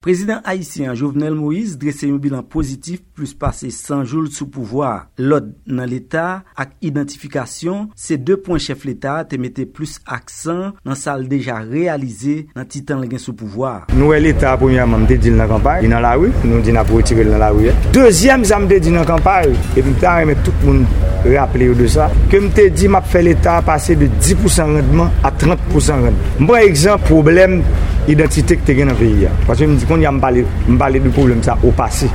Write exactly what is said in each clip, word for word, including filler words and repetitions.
Prezidan ayisyen an, Jovenel Moïse, drese yon bilan pozitif plis pase san jou l sou pouvwa a. Lòd nan Leta ak idantifikasyon se de pwen chèf Leta a te mete plis aksan nan sa l deja reyalize nan ti tan l gen sou pouvwa a. Nou wè Leta a, premyèman, m te di l nan kanpay, li nan lari, nou di n ap retire l nan lari a. Dezyèm, sa m te di nan kanpay, epi m ta renmen tout moun raple yo de sa, ke m te di m ap fè Leta a pase de dis pou san randman a trant pou san randman. M pran egzanp pwoblèm idantite ki te gen nan peyi a. Paske m di, kounye a m pale, m pale de pwoblèm sa o pase.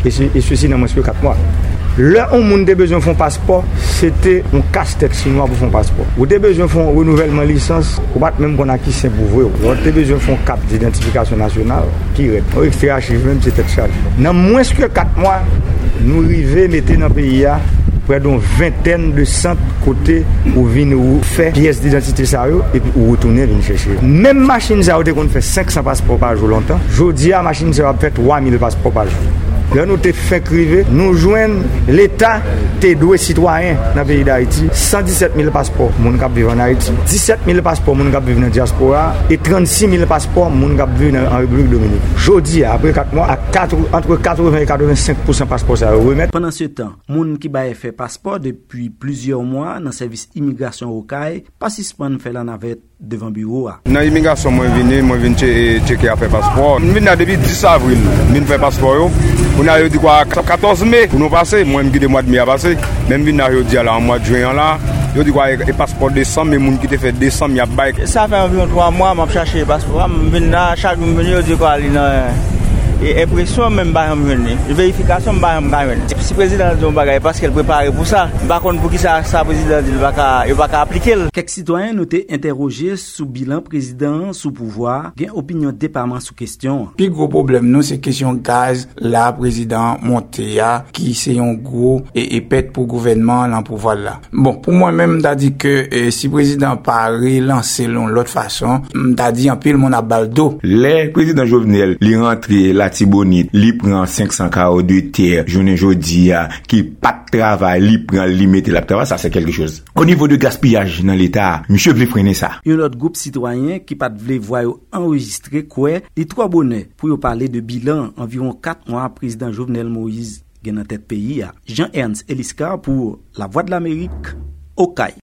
E se, e sesi nan mwens ke kat mwa. Lè yon moun te bezwen fè yon paspò, se te yon kastèt chinwa pou fè yon paspò. Ou te bezwen fè yon renouvèlman lisans, ou pa t menm konn a ki senp ou vre w. Lè w te bezwen fè yon kat didantifikasyon nasyonal, ki rèd. Yon ekstè achiv menm, se tèt chaje. Nan mwens ke kat mwa, nou rive mete nan peyi a prè de yon ventèn de sant kote ou vin ou fè pyès didantite sa yo, epi ou retounen vin chèche yo. Menm machin sa yo te konn fè senk san paspò pa jou lontan, jodi a, machin sa yo ap fè twa mil paspò pa jou. Lè nou te fenk rive, nou jwenn Leta te dwe sitwayen nan peyi Dayiti san disèt mil paspò moun k ap viv ann Ayiti, disèt mil paspò moun k ap viv nan dyaspora, e trannsis mil paspò moun k ap viv nan, an Repiblik Dominik. Jodi a, apre kat mwa, ak katr-, antre katreven e katrevensenk pou san paspò sa yo remèt. Pandansetan, moun ki bay fè paspò depi plizyè mwa nan sèvis imigrasyon Okay pa sispann fè lanavèt devan biwo a. Nan imigrasyon mwen vini, mwen vin tche-, tcheke afè paspò. M vin la depi dis avril, m vin fè paspò yo. Kounye a yo di kwa katòz me pou nou pase, mwen m kite mwa de me a pase. Men m vin la jodi a la, an mwa de jen an la, yo di kwa e, e paspò desanm, e moun ki te fè desanm y ap bay. Sa fè anviwon twa mwa m ap chache paspò a, m vin la, chak jou m vini, yo di kwa li nan, e, enpresyon, men m pa janm jwenn li. Verifikasyon, m pa janm ka jwenn li. Si prezidan an di yon bagay, paske l prepare pou sa. M pa konn poukisa sa prezidan an di l pa ka, yo pa ka aplike l. Kèk sitwayen nou te entèwoje sou bilan prezidan an sou pouvwa a gen opinyon depaman sou kesyon an. Pi gwo pwoblèm nou se kesyon gaz la prezidan an monte a, ki se yon gwo e, e pèt pou gouvènman an lan pouvwa l la. Bon, pou mwen menm, m ta di ke, e, si prezidan an pa relanse l yon lòt fason, m ta di anpil moun ap ba l do. Lè prezidan Jovenel, li rantre Latibonit, li pran senk san kawo de tè, jounen jodi a, ki pa t travay, li pran l, li mete l ap travay, sa se kèlke choz. O nivo de gaspiyaj nan Leta a, misye vle frennen sa. Yon lòt gwoup sitwayen ki pa t vle vwa yo anrejistre kwè li twò bonè pou yo pale de bilan anviwon kat mwa prezidan Jovenel Moïse gen nan tèt peyi a. Jean Ernst Eliscar pou Lavwadlamerik, Okay.